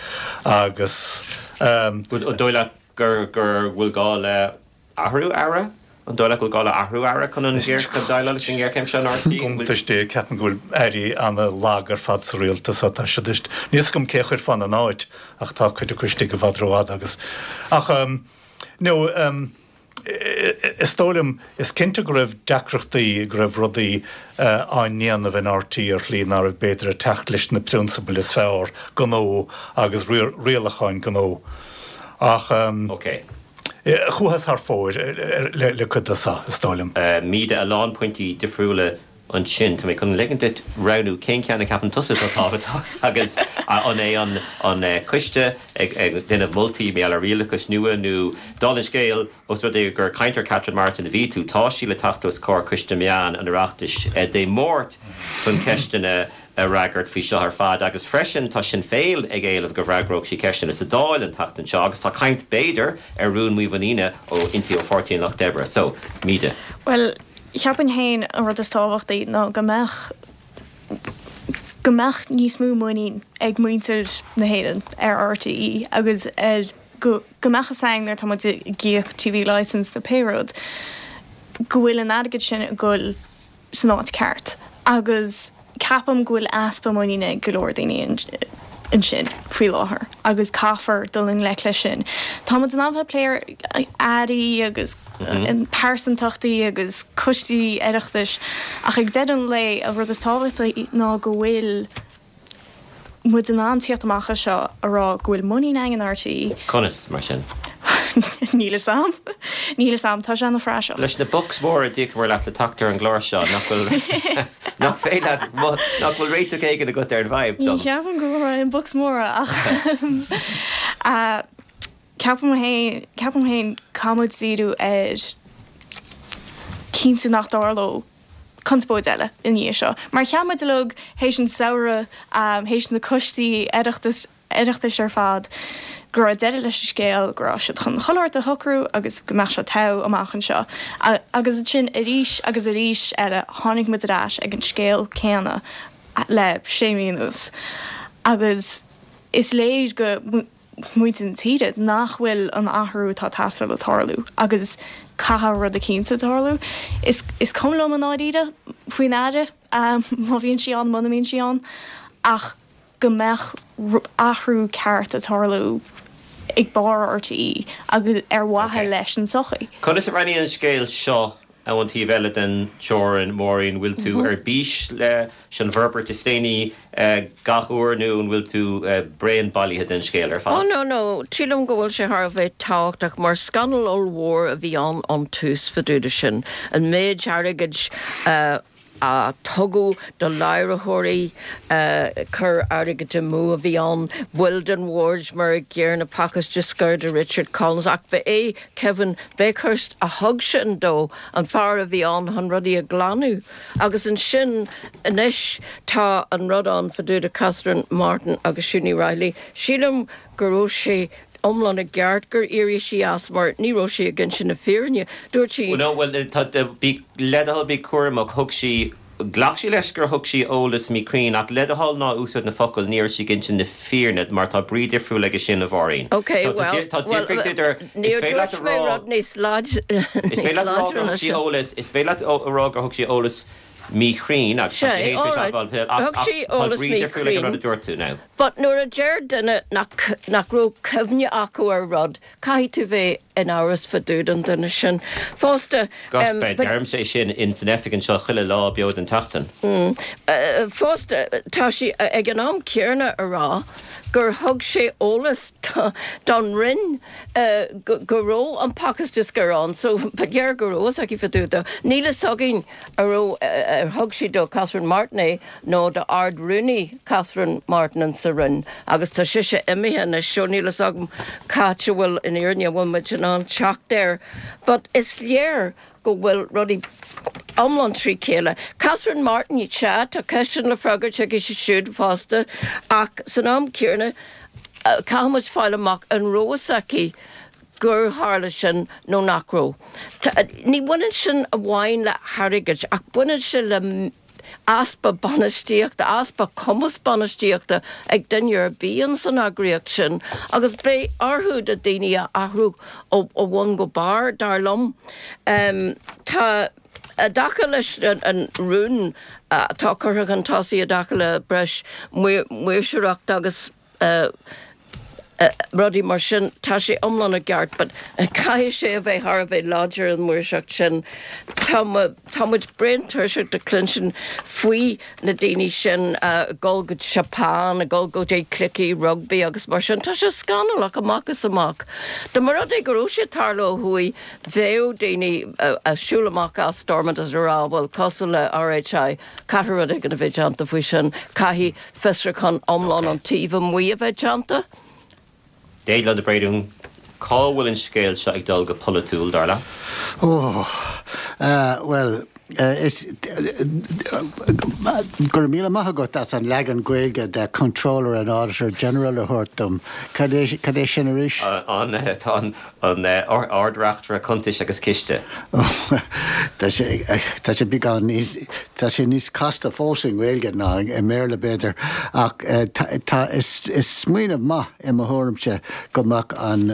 agus. An dóigh leat gur, gur bhfuil gá le Athrú Aire? An dóigh leat go bhfuil gá le athrú Aire chun an chun déileáil leis an ngéarchéim seo in RTÉ? Iontas Dé, ceapaim go bhfuil airí ana-lag ar fad sa rialtas tá siad níl a fhios agam cé a chuirfeá ina n-áit ach tá cuid acu istigh i bhfad rófhada agus ach no is dóigh liom is cinnte go raibh deacrachtaí go raibh rudaí á ndéanamh in RTÉ ar shlí ná raibh b'fhéidir ag teacht leis na prionsabail is fearr gnó agus rialacháin gnó ach Ok. Chuathas thar fóir le cuid de seo, is dóigh liom. Míde, a lán pointí difriúla ansin. Tá mé chun ligint duit roghnú cén ceann a cheapann tusa atá tábhachtach agus an é an coiste ag déanamh moltaí mar gheall ar rialachas nua nó, dála an scéil, os rud é gur ag caint ar Catherine Martin a bhí tú, tá sí le teacht os comhair Coiste Meán an Oireachtais Dé Máirt chun ceisteanna a fhreagairt faoi seo ar fad agus freisin tá Sinn Féin ag éileamh go bhfreagródh sí ceisteanna sa Dáil an tseachtain seo agus tá caint b'fhéidir ar rún mímhuiníne ó inti ó Pháirtí an Lucht Oibre. So, Míde. Bhuel, cheapfainn féin an rud is tábhachtaí ná go mbeadh go mbeadh níos mó muinín ag muintir na hÉireann ar RTÉ agus ar go go mbeadh fhios againn nuair atá muid ag íoc TV licence nó pé rud go bhfuil an airgead sin ag goil san áit ceart agus ceapaim go bhfuil easpa muiníne ag go leor daoine ansin faoi láthair agus caithfear dul i ngleic leis sin. Tá muid in ann bheith ag plé ar airí agus pearsantachtaí agus coistí Oireachtais ach ag deireadh an lae an rud is tábhachtaí ná go bhfuil muid in ann tíocht amach as seo a rá go bhfuil muinín againn in RTÉ. Conas, mar sin? Níl fhios a'm. Níl fhios a'm. Tá sé ana phraiseach. Leis na bucks móra a d'íocamar leat le teacht ar an gclár seo, nach bhfuil, nach féidir leat, nach bhfuil réiteach éigin agat ar an bhfadhb Ní dom? cheapaim go bhfuair mé aon bucks móra ach ceapaim féin, ceapaim féin caithfidh muid díriú ar cinntiú nach dtarlódh conspóid eile i ndiaidh seo. Mar cheap muid uilig théis an samhradh, théis na coistí Oireachtais, Oireachtais ar fad go raibh deireadh leis an scéal, go raibh siad chun chuile shórt a shocrú agus go mbeadh sé togha amach anseo. Agus ansin arís agus arís eile tháinig muid ar ais ag an scéal céanna le sé mhí anuas. Agus is léir go muintir na tíre nach bhfuil an athrú atá ag teastáil ag tarlú agus caithfidh rud eicínt tarlú. Is cuma liom i ndáiríre faoin Aire má bhíonn sí ann, muna mbíonn sí ann ach go mbeadh athrú ceart ag tarlú ag barr RTÉ agus ar mhaithe leis an tsochaí. Conas a bhreathnaíonn an scéal seo ón taobh eile den teorainn, Máirín? Bhfuil tú ar bís leis an bhforbairt is déanaí gach uair nó an bhfuil tú bréan bailithe den scéal ar fad? Oh no no, sílim go bhfuil sé thar a bheith tábhachtach mar scannal ollmhór a bhí ann ón tús fá dtaobh de sin. An méid airgid a a tugadh do láithreoirí, cur airgid amú a bhí ann, baill den bhord mar a gcéanna, pacáiste scoir do Richard Collins, ach ba é Kevin Bakhurst a thug sin dó, an fear a bhí ann chun rudaí a ghlanadh. Agus ansin anois tá an rud ann fá dtaobh de Catherine Martin agus Siún Ní Raghallaigh. Sílim go raibh sé iomlán i gceart gur éirigh sí as mar ní raibh sí ag inse na fírinne. Dúirt sí. No, bhuel, tá, bí, le do thoil, bí cúramach, thug sí, ghlac sí leis gur thug sí eolas míchruinn ach le do thoil ná úsáid na focail ní raibh sí ag inse na fírinne mar tá brí difriúil aige sin, a Mháirín. Ok, So tá, well, tá well, difríocht idir, is níor féidir leat a dúirt mé rá, rud níos láid, is níos féidir leat a rá láidre gur ná thug sí sin. eolas, is féidir leat a rá gur thug sí eolas míchruinn agus tá Sea, sí féin tar éis alright, admháil, ach, thug ach sí tá eolas brí difriúil ag an rud míchruinn. a dúirt tú now. But nuair a deir duine nach nach raibh cuimhne acu ar rud, caithfidh tú bheith in amhras fá dtaobh den duine sin. Fosta, Gosh, but. deirimse é sin in san oifig anseo chuile lá beo den tseachtain. Fosta, tá sí ag an am céanna a rá gur thug sé eolas don Roinn go raibh an pacáiste scoir ann, so ba léir go raibh fhios aici fá dtaobh de. Níl fhios againn an raibh, ar thug sí do Catherine Martin é nó do Ard-Rúnaí Catherine Martin in sa Roinn agus tá sise imithe anois so níl fhios agam cá háit a bhfuil an fhírinne, an bhfuil muid in ann teacht air but is léir go bhfuil rudaí iomlán trí chéile. Catherine Martin, sea, tá ceisteanna le freagairt aici siúd fosta ach san am céanna caithfidh muid fáil amach an raibh fhios aici gur tharla sin nó nach raibh. Ní bhaineann sin amháin le hairgead ach baineann sé le easpa bainistíochta, easpa cumas bainistíochta ag duine ar bith ins an eagraíocht sin agus beidh orthu na daoine a athrú ó bhun go barr, dar liom. Tá, i dtaca leis an rún atá curtha chun tosaigh i dtaca le breis maoirseoireachta agus rudaí mar sin, tá sé iomlán i gceart but caithfidh sé a bheith thar a bheith láidir an mhaoirseacht sin. Tá tá muid bréan tuirseach de cluinstin faoi na daoine sin ag dul go Japan, ag dul go dtí cluichí rugbaí agus mar sin. Tá sé scannalach amach is amach. Dá mba rud é go raibh sé ag tarlú ó thuaidh, bheadh daoine ag siúl amach as Stormont is ag rá bhuel cosúil le RHI, Caithfidh rud éigin a bheith déanta faoi sin. Caithfidh fiosrúchán iomlán ón taobh amuigh a bheith déanta. Déaglán de Bréadún, cá bhfuil an scéal seo ag dul go polaitiúil, dar leat? Ó, bhuel, is, go raibh míle maith agat as an leagan Gaeilge de Comptroller and Auditor General a thabhairt dom. Cad é, cad é sin arís? An, tá an, An Ard-Reachtaire Cuntais agus Ciste. Tá sé, tá sé beagán níos, tá sé níos casta fós i nGaeilge ná i mBéarla b'fhéidir, ach tá, is, is smaoineamh maith i mo thuairimse go mbeadh an,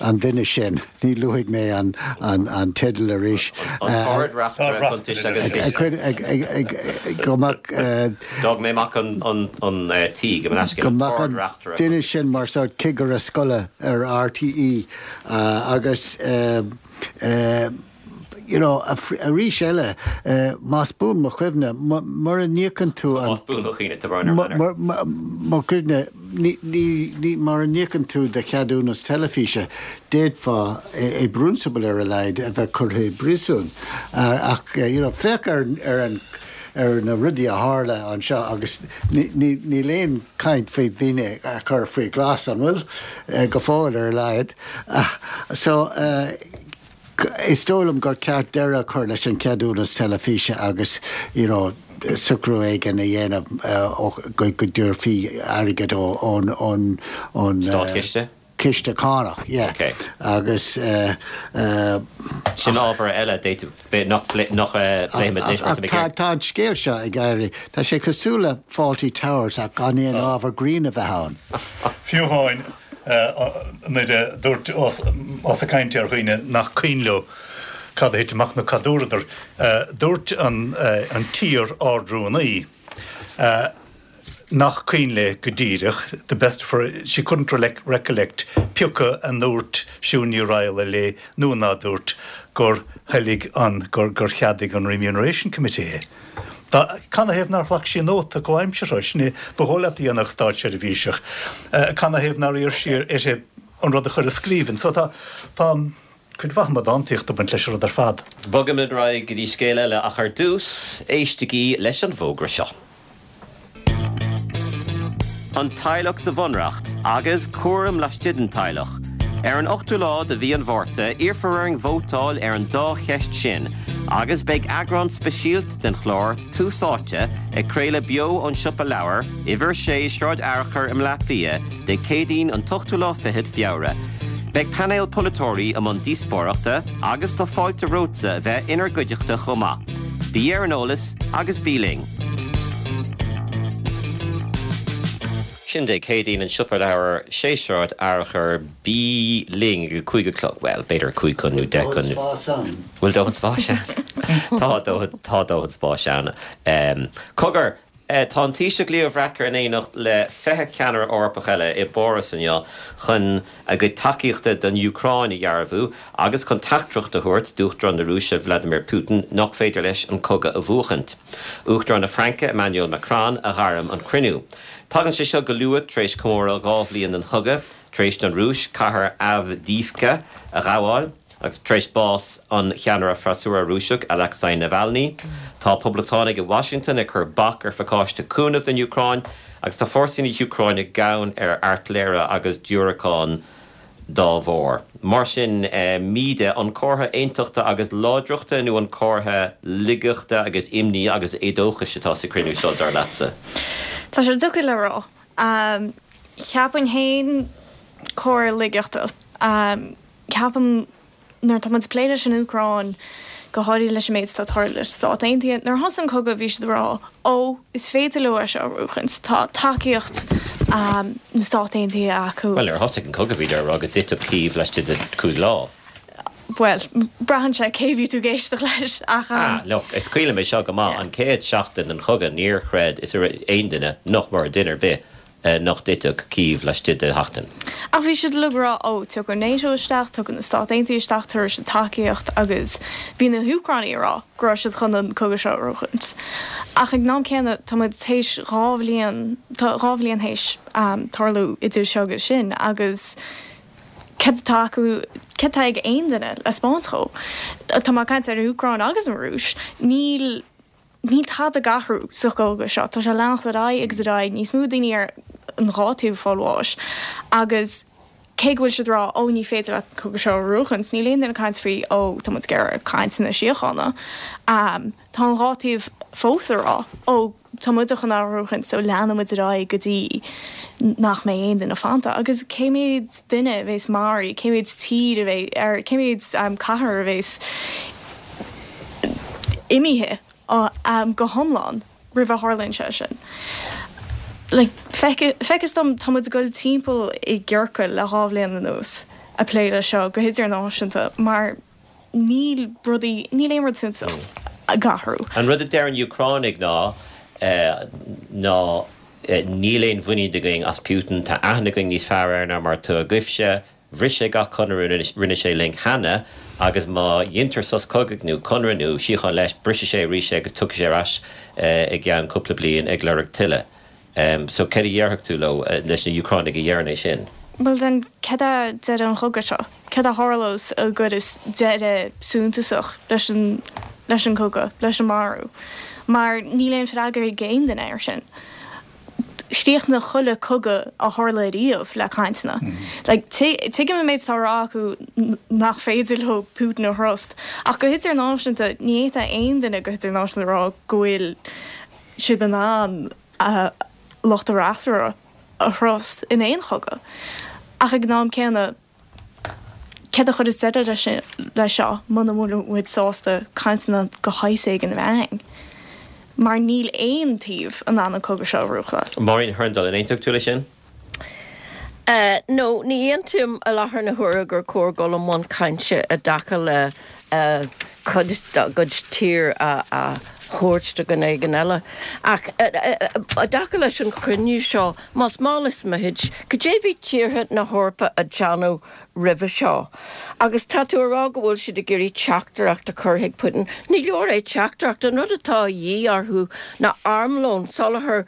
an duine sin, ní luafaidh mé an, an, an teideal arís. An tArd-Reachtaire Cuntais agus Ciste. Go mbeadh. D'fhág mé amach an, an, an T, gabh mo leithscéal. Go mbeadh an duine sin mar sórt cigire scoile ar RTÉ agus you know arís eile más buan mo chuimhne mura n-íocann tú an. Más buan mo chuimhne, tá brón orm, mo chuimhne. ní, ní, ní, mura n-íocann tú do cheadúnas teilifíse, d'fhéadfá, i bprionsabal ar a laghad, a bheith curtha i bpríosún. Ach, you know, féach ar, ar an, ar na rudaí a tharla anseo agus ní, ní, níl aon chaint faoi dhaoine a chur faoi ghlas, an bhfuil? Go fóill ar a laghad. So, Is dóigh liom gur ceart deireadh a chur leis an cheadúnas teilifíse agus you know socrú éigin a dhéanamh go dtabharfaí airgead ón ón Státchiste? ciste cánach, yeah. Ok. Agus. Sin ábhar eile d'fhéadfadh nach bpléifimid anois mar tá mé ag Ach tá an scéal seo ag éirí, tá sé cosúil le Fawlty Towers ach gan aon ábhar grinn a bheith ann. Fiú amháin nuair a dúirt ós ag caint ar dhaoine nach cuimhin leo cad a thit amach nó cad dúradar, dúirt an t-iar-Ard-Rúnaí nach cuimhin léi go díreach, the best of her, she couldn't recollect pioca a ndúirt Siún Ní Raghallaigh léi nó ná dúirt gur thoiligh an, gur cheadaigh an Remuneration Committee é. Canathaobh nár ghlac sí nóta comhaimseartha? Sin é ba dhóigh leat a dhéanfadh státseirbhíseach. Canathaobh nár iarr sí uirthi an rud a chur i scríbhinn? So tá, tá cuid mhaith amadántaíochta ag baint leis an rud ar fad. Bogfaimid ar aghaidh go dtí scéal eile ach ar dtús, éistigí leis an bhfógra seo. An teaghlach sa Bhunreacht agus cúram laistigh den teaghlach. Ar an 8ú lá de mhí an Mhárta, iarrfar orainn vótáil ar an dá cheist sin agus beidh eagrán speisialta den chlár Tús Áite ag craoladh beo ón Siopa Leabhar, Uimhir 6, Sráid Fhearchair i mBleá Cliath, Dé Céadaoin an t-ochtú lá fichead Feabhra. Beidh painéal polaiteoirí i mbun díospóireachta agus tá fáilte romhatsa a bheith inár gcuideachta chomh maith. Bí ar an eolas agus bí linn! Sin Dé Céadaoin, an Siopa Leabhar, 6 Sráid Fhearchair, bí linn ag a 5 a chlog, bhuel, b'fhéidir a 5 chun nó 10 chun. Dóthain spáis ann. Bhfuil dóthain spáis ann? Tá dóthain, tá dóthain spáis ann. Cogar, Tá an Taoiseach Leo Varadkar in éineacht le 20 ceannaire Eorpach eile i bPáras inniu chun a gcuid tacaíochta don Úcráin a dhearbhú agus chun teachtaireacht a thabhairt d'Uachtarán na Rúise Vladimir Putin nach féidir leis an cogadh a bhuachaint. Uachtarán na Fraince Emmanuel Macron a ghairm an cruinniú. Tagann sé seo go luath tar éis comóradh 2 bhliain den chogadh, tar éis don Rúis cathair Avdiivka a ghabháil. Agus tar éis bás an cheannaire freasúra Rúiseach Alexei Navalny, tá poblachtánaigh i Washington ag cur bac ar phacáiste cúnaimh don Úcráin agus tá fórsaí na hÚcráine gann ar airtléire agus diúracáin dá bharr. Mar sin, Míde, an comhartha aontachta agus láidreachta nó an comhartha laigeachta agus imní agus éadóchais atá sa chruinniú seo, dar leatsa? Tá sé deacair le rá. Cheapfainn féin comhartha laigeachta. Ceapaim, nuair atá muid ag plé leis an Úcráin, go háirithe leis an méid atá ag tarlú leis na Stáit Aontaithe, nuair a thosaigh an cogadh bhí siad ag rá, ó, is féidir leo é seo a bhuachaint, tá tacaíocht na Stát Aontaithe acu. Bhuel, nuair a thosaigh an cogadh bhíodar ag rá go dtitfeadh Cív laistigh de chúig lá. Bhuel, braitheann sé cé bhí tú ag éisteacht leis, ach. Ah, look, is cuimhin liom é seo go maith, an chéad seachtain den chogadh níor chreid is aon duine, nach mór, duine ar bith, nach dtitfeadh Cív laistigh de sheachtain. Ach bhí siad uilig ag rá, ó, tiocfaidh NATO isteach, tiocfaidh na Stáit Aontaithe isteach, tabharfaidh siad tacaíocht agus bhí na hÚcránaigh ag rá go raibh siad chun an cogadh seo a bhuachaint. Ach ag an am céanna, tá muid théis 2 bhliain, tá 2 bhliain théis tarlú idir seo agus sin agus céard atá acu, céard atá ag aon duine le 'spáint dhó? Tá mé ag caint ar an Úcráin agus an Rúis, níl. Níl tada ag athrú sa chogadh seo. Tá sé ag leanacht ar aghaidh agus ar aghaidh, níos mó daoine ar an dhá taobh ag fáil bháis agus cé go bhfuil siad ag rá ó ní féidir leat an cogadh seo a bhuachaint, níl aon duine ag caint faoi ó tá muid ag iarraidh cainteanna síochána. Tá an dhá taobh fós ag rá ó tá muide chun é a bhuachaint so leanfaidh muid ar aghaidh go dtí nach mbeidh aon duine fanta. Agus cé mhéad duine a bheas maraithe, cé mhéad tír a bheidh, ar cé mhéad cathair a bheas imithe go hiomlán roimh a tharlaíonn sé sin. Like, feictear dom, tá muid ag dul timpeall i gciorcal le 2 bhliain anuas ag plé leis seo go hidirnáisiúnta mar níl rudaí, níl aon rud suntasach ag athrú. An rud a deir an Úcránaigh ná ná níl aon mhuinín againn as Putin, tá aithne againn níos fearr air ná mar atá agaibhse, Bhris sé gach conradh a rinne sé linn cheana agus má dheintear sos cogaidh nó conradh nó síocháin leis, brisfidh sé arís é agus tiocfaidh sé ar ais i gceann cúpla bliain ag lorg tuilleadh. So céard a dhéarfadh tú leo, leis na Úcránaigh a dheireann é sin? Bhuel then, céard é deireadh an chogaidh seo? Céard a tharlós a gcuireas deireadh suntasach leis an leis an cogadh, leis an marú? Mar níl aon freagra ag aon duine air sin. Chríochnaigh chuile cogadh a tharla ariamh le cainteanna. Like, tuigim an méid atá á rá acu nach féidir leo Putin a thrust, ach go hidirnáisiúnta, ní fhéadfadh aon duine go hidirnáisiúnta a rá go bhfuil siad in ann lucht a bhfreasúra a thrust in aon chogadh. Ach ag an am céanna, céard a chuireas deireadh leis seo muna bhfuil muid sásta cainteanna de shaghas éigin a bheith againn? Mar níl aon taobh in ann an cogadh seo a bhuachan. Máirín Hurndall, an aontódh tú leis sin? No, ní aontaím i láthair na huaire gur cóir dul i mbun cainte i dtaca le cuid dá gcuid tír a thabhairt do dhuine éigin eile. Ach i dtaca leis an chruinniú seo, más mall is mithid, cad é bhí tíortha na hEorpa a déanamh roimhe seo? Agus tá tú a rá go bhfuil siad ag iarraidh teachtaireacht a chur chuig Putin. Ní leor é teachtaireacht, an rud atá a dhíth orthu ná armlón, soláthar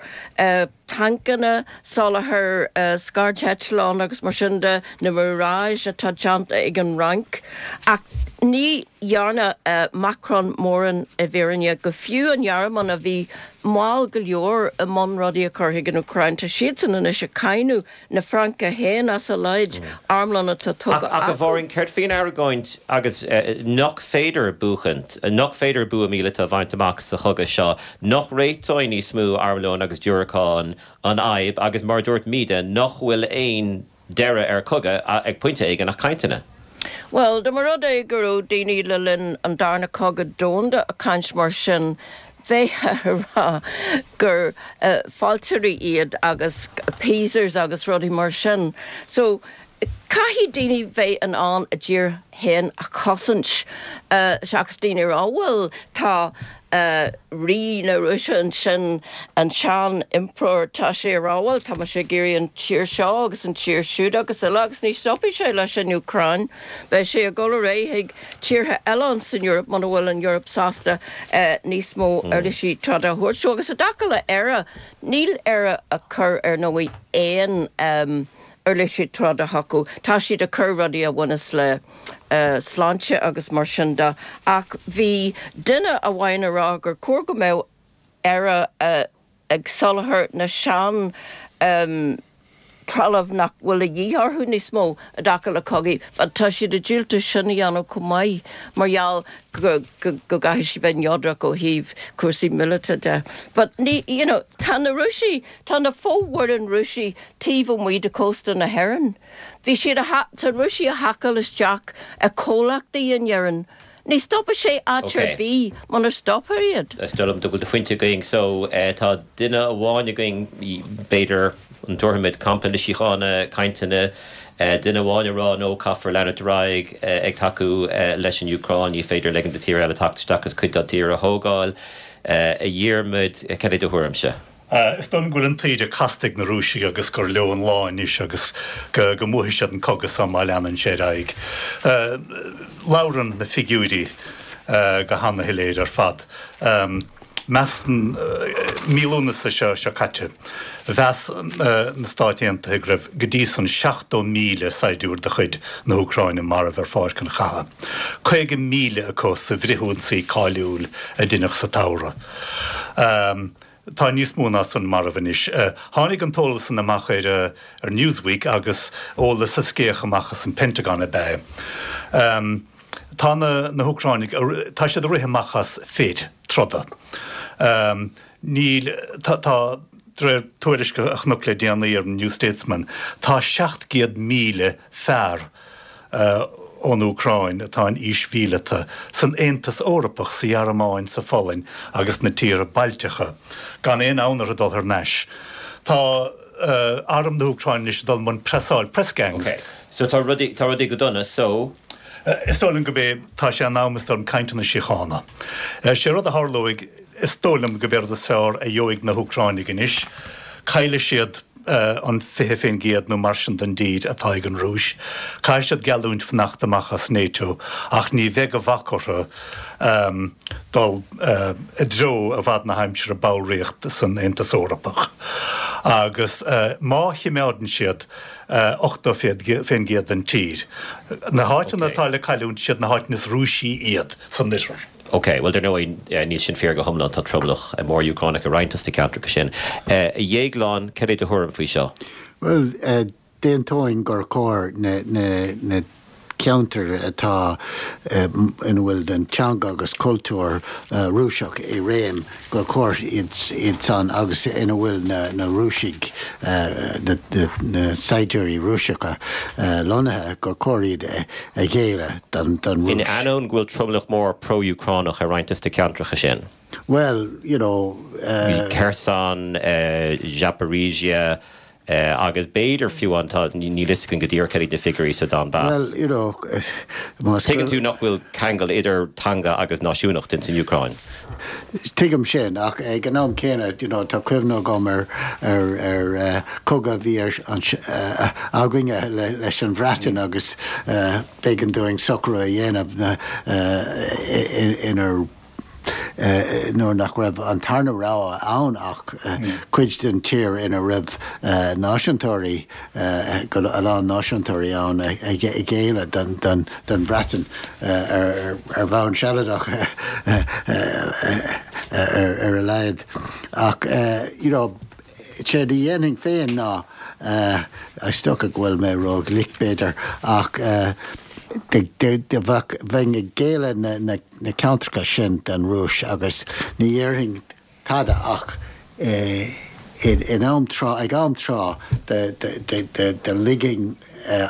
tancanna, soláthar scairdeitleán agus mar sin de, na Mirage atá déanta ag an Fhrainc. Ach ní dhearna Macron mórán i bhfírinne, go fiú an Ghearmáin a bhí mall go leor i mbun rudaí a chur chuig an Úcráin, tá siadsan anois ag cáineadh na Fraince féin as a laghad armlón atá tugtha Ach a Mháirín, céard faoin argóint agus nach féidir buachaint, nach féidir bua míleata a bhaint amach sa chogadh seo, nach réiteoidh níos mó armlóin agus diúracán an fhadhb agus mar a dúirt Míde, nach bhfuil aon deireadh ar chogadh ag pointe éigin ach cainteanna? Bhuel, dá mba rud é go raibh daoine le linn an Darna Cogadh Domhanda ag caint mar sin, bheifeá ag rá gur fealltóirí iad agus appeasers agus rudaí mar sin. So, caithfidh daoine bheith in ann a dtír féin a chosaint seachas daoine a rá, bhuel, tá Rí na Rúise ansin, an sean-impireoir, tá sé ag rá, bhuel, tá mise ag iarraidh an tír seo agus an tír siúd agus uile agus ní stopfaidh sé leis an Úcráin, beidh sé ag dul ar aghaidh chuig tíortha eile ansan Eoraip muna bhfuil an Eoraip sásta níos mó uirlisí troda a thabhairt dó. Agus i dtaca le Éire, níl Éire ag cur ar ndóigh aon uirlisí troda chucu. Tá siad ag cur rudaí a bhaineas le sláinte agus mar sin de ach bhí duine amháin ag rá gur chóir go mbeadh Éire ag soláthar na sean trealamh nach bhfuil a dhíth orthu níos mó i dtaca le cogaí. Tá siad ag diúltú sin a dhéanamh chomh maith mar gheall go go gcaithfidh siad bheith neodrach ó thaobh cúrsaí míleata de. But ní, you know, tá na Rúisigh, tá na fomhuireáin Rúisigh taobh amuigh de chósta na hÉireann. Bhí siad a, tá na Rúisigh ag haiceáil isteach i comhlachtaí in Éirinn. Ní stopfaidh sé áit ar bith munar stopfar iad. Is dóigh liom go bhfuil do phointe againn. So, tá duine amháin againn, b'fhéidir, an dtabharfaimid campa na síochána, cainteanna, duine amháin ag rá no, caithfear leanúint ar aghaidh ag tacú leis an Úcráin, ní féidir ligean do tír eile teacht isteach agus cuid dá dtír a thógáil. A Dhiarmaid, cad é do thuairimse? Is dóigh liom go bhfuil an taoide casta ag na Rúisigh agus gur leo an lá anois agus go mbuafaidh siad an cogadh seo má leanann sé ar aghaidh. Labhrann na figiúirí go hana-shoiléir ar fad. Measann, mí Lúnasa seo seo caite, mheas na Stáit Aontaithe go raibh go dtí san 70,000 saighdiúir de chuid na hÚcráine marbh ar pháirc an chatha, 50,000 acu sa bhfrithionsaí cáiliúil a deineadh sa tsamhradh. Tá níos mó ná san marbh anois. Tháinig an t-eolas san amach ar ar Newsweek agus eolas a scéach amach as an Pentagon ab ea é. Tá na na hÚcráinigh, tá siad ag rith amach as fir troda. Níl, tá, tá, de réir tuairisc a chonac le déanaí ar an New Statesman, tá 700,000 fear, ón Úcráin atá in aois mhíleata, san Aontas Eorpach, sa Ghearmáin, sa Pholainn agus sna tíortha Bailteacha, gan aon fhonn orthu dul thar n-ais. Tá arm na hÚcráine anois ag dul i mbun preasáil, press gangs. Ok, so tá rudaí, tá rudaí go dona, so. Is dóigh liom gurb é, tá sé in am, is dóigh liom, cainteanna síochána. Sé rud a tharlóidh, is dóigh liom gurb é rud is fearr a gheobhaidh na hÚcráinigh anois, caillfidh siad an 20% nó mar sin den dtír atá ag an Rúis. Caithfidh siad geallúint fanacht amach as NATO ach ní bheidh de bhac orthu dul i dtreo i bhfad na haimsire ballraíocht san Aontas Eorpach. Agus má chimeádann siad 80% den tír, na háiteanna atá le cailliúint, siad na háiteanna is Rúisí iad san oirthear. Ok, bhuel dar ndóigh níl sin fíor go hiomlán, tá tromlach mór Úcránach i roinnt dos na ceantracha sin. A Dhéagláin, cad é do thuairim faoi seo? Bhuel, d'aontóinn gur chóir na ceantair atá ina bhfuil an teanga agus cultúr Rúiseach i réim, gur chóir iad san agus ina bhfuil na Rúisigh, na saighdiúirí Rúiseacha lonnaithe, gur chóir iad a ghéilleadh don Rúis. In ainneoin go bhfuil tromlach mór pro-Úcránach i roinnt dos na ceantracha sin. Bhuel, you know. Kherson, Zaporizhzhia, Agus b'fhéidir fiú an, tá, níl fhios againn go díreach cad iad na figiúirí sa Donbass. Bhuel, you know, más. Tuigeann tú nach bhfuil ceangal idir teanga agus náisiúnacht ins an Úcráin. Tuigim sin, ach ag an am céanna, you know, tá cuimhne agam ar, ar, ar cogadh a bhí ar, againne leis an Bhreatain agus b'éigean dúinn socrú a dhéanamh inar, nuair nach raibh an tarna rogha ann ach cuid den tír ina raibh náisiúntóirí, a lán náisiúntóirí ann a ghéilleadh don Bhreatain ar bhonn sealadach ar a laghad. Ach you know, séard a dhéanfainn féin ná, is dócha go bhfuil mé ró-ghlic b'fhéidir, ach bheinn ag géilleadh na na ceantracha sin don Rúis agus ní dhéarfainn tada ach in am tráth, ag am tráth do ligfinn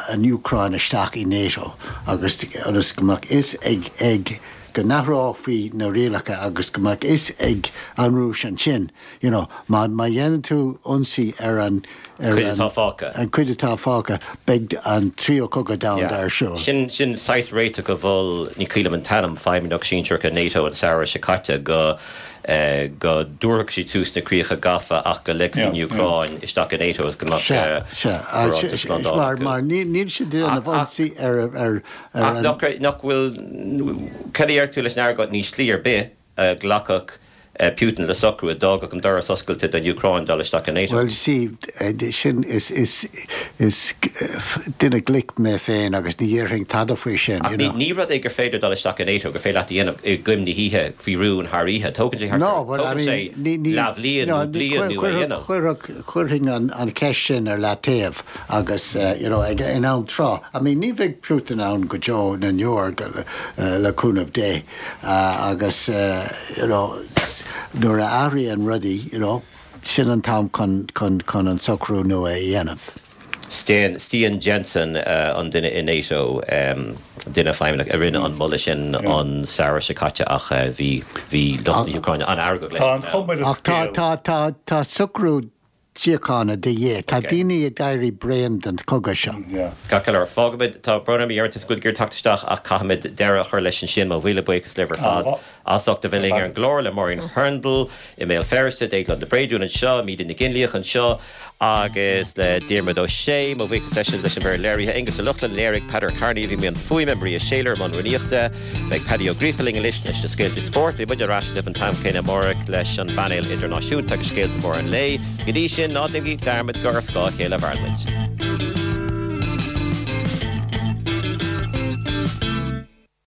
an Úcráin isteach i NATO agus ionas go mbeadh fhios ag, ag, go n-athrófaí na rialacha agus go mbeadh fhios ag an Rúis ansin You know, má, má dhéanann tú ionsaí ar an, ar Cuid an, atá fágtha. an cuid atá fágtha, beidh an tríú cogadh domhanda Yeah. ar siúl. Sin, sin saghas réiteach a mhol, ní cuimhin liom an t-ainm, feidhmeannach sinsearach i NATO an samhradh seo caite, go, eh, go dtabharfadh siad suas na críocha gafa ach go ligfí an Yeah, yeah. Úcráin isteach i NATO agus go mbeadh, Sea, eh, sea. barántas slándála Mar, acu. mar ní, níl siad ag déanamh Ach, ach, ionsaí ar, ar, ar ach an. nach raibh, nach bhfuil, cad a deir tú leis an argóint, níl slí ar bith a ghlacfadh Putin le socrú a d'fhágfadh an doras oscailte don Úcráin dul isteach i NATO. Bhuel, see, sin, is, is, is duine glic mé féin agus ní dhéarfainn tada faoi sin, Ach you ní, know. ní rud é gur féidir dul isteach i NATO, gur féidir leat a dhéanamh i gcoim na hoíche faoi rún thar oíche. Tógann sé thart No, ar, but I tógann mean, sé ní, ní, leathbhliain no, nó bliain ní, nó a dhéanamh. chuirfeadh, chuirfinn an, an cheist sin ar leataobh agus, you know, ag, in am tráth. I mean, ní bheidh Putin ann go deo na ndeor, le cúnamh Dé. Agus you know nuair a athraíonn rudaí you know sin an t-am chun chun chun an socrú nua a dhéanamh. Stian Stian Jensen an duine i NATO, duine feidhmeannach a rinne an moladh sin an samhradh seo caite ach bhí bhí lucht na hÚcráine an-fheargach leis Tá an chuma ar an Ach tá scéal. tá tá tá socrú síochána de dhíth. Tá daoine ag éirí bréan den chogadh seo. Ceart go leor, fágfaimid, tá brón orm a Dhiarmuid, go bhfuil tú ag iarraidh teacht isteach ach caithfimid deireadh a chur leis ansin. Mo mhíle buíochas libh ar fad as ucht a bheith linn ar an gclár, le Máirín Hurndall i mBéal Feirste, Déaglán de Bréadún anseo, Míde Nic Fhionnlaoich anseo agus le Diarmuid Ó Sé. Mo bhuíochas leis leis an bhfoireann léirithe, Aonghus Ó Lochlainn, léirigh, Peadar Kearney a bhí i mbun fuaime, Maria Shayler i mbun rúnaíochta. Beidh Paddy Ó Gríofa linn anois leis na scéalta spóirt. Beidh muid ar ais libh an t-am céanna amárach leis an bpainéal idirnáisiúnta agus scéalta móra an lae. Go dtí sin, ná déanaigí dearmad gur ar scáth a chéile a mhaireann muid.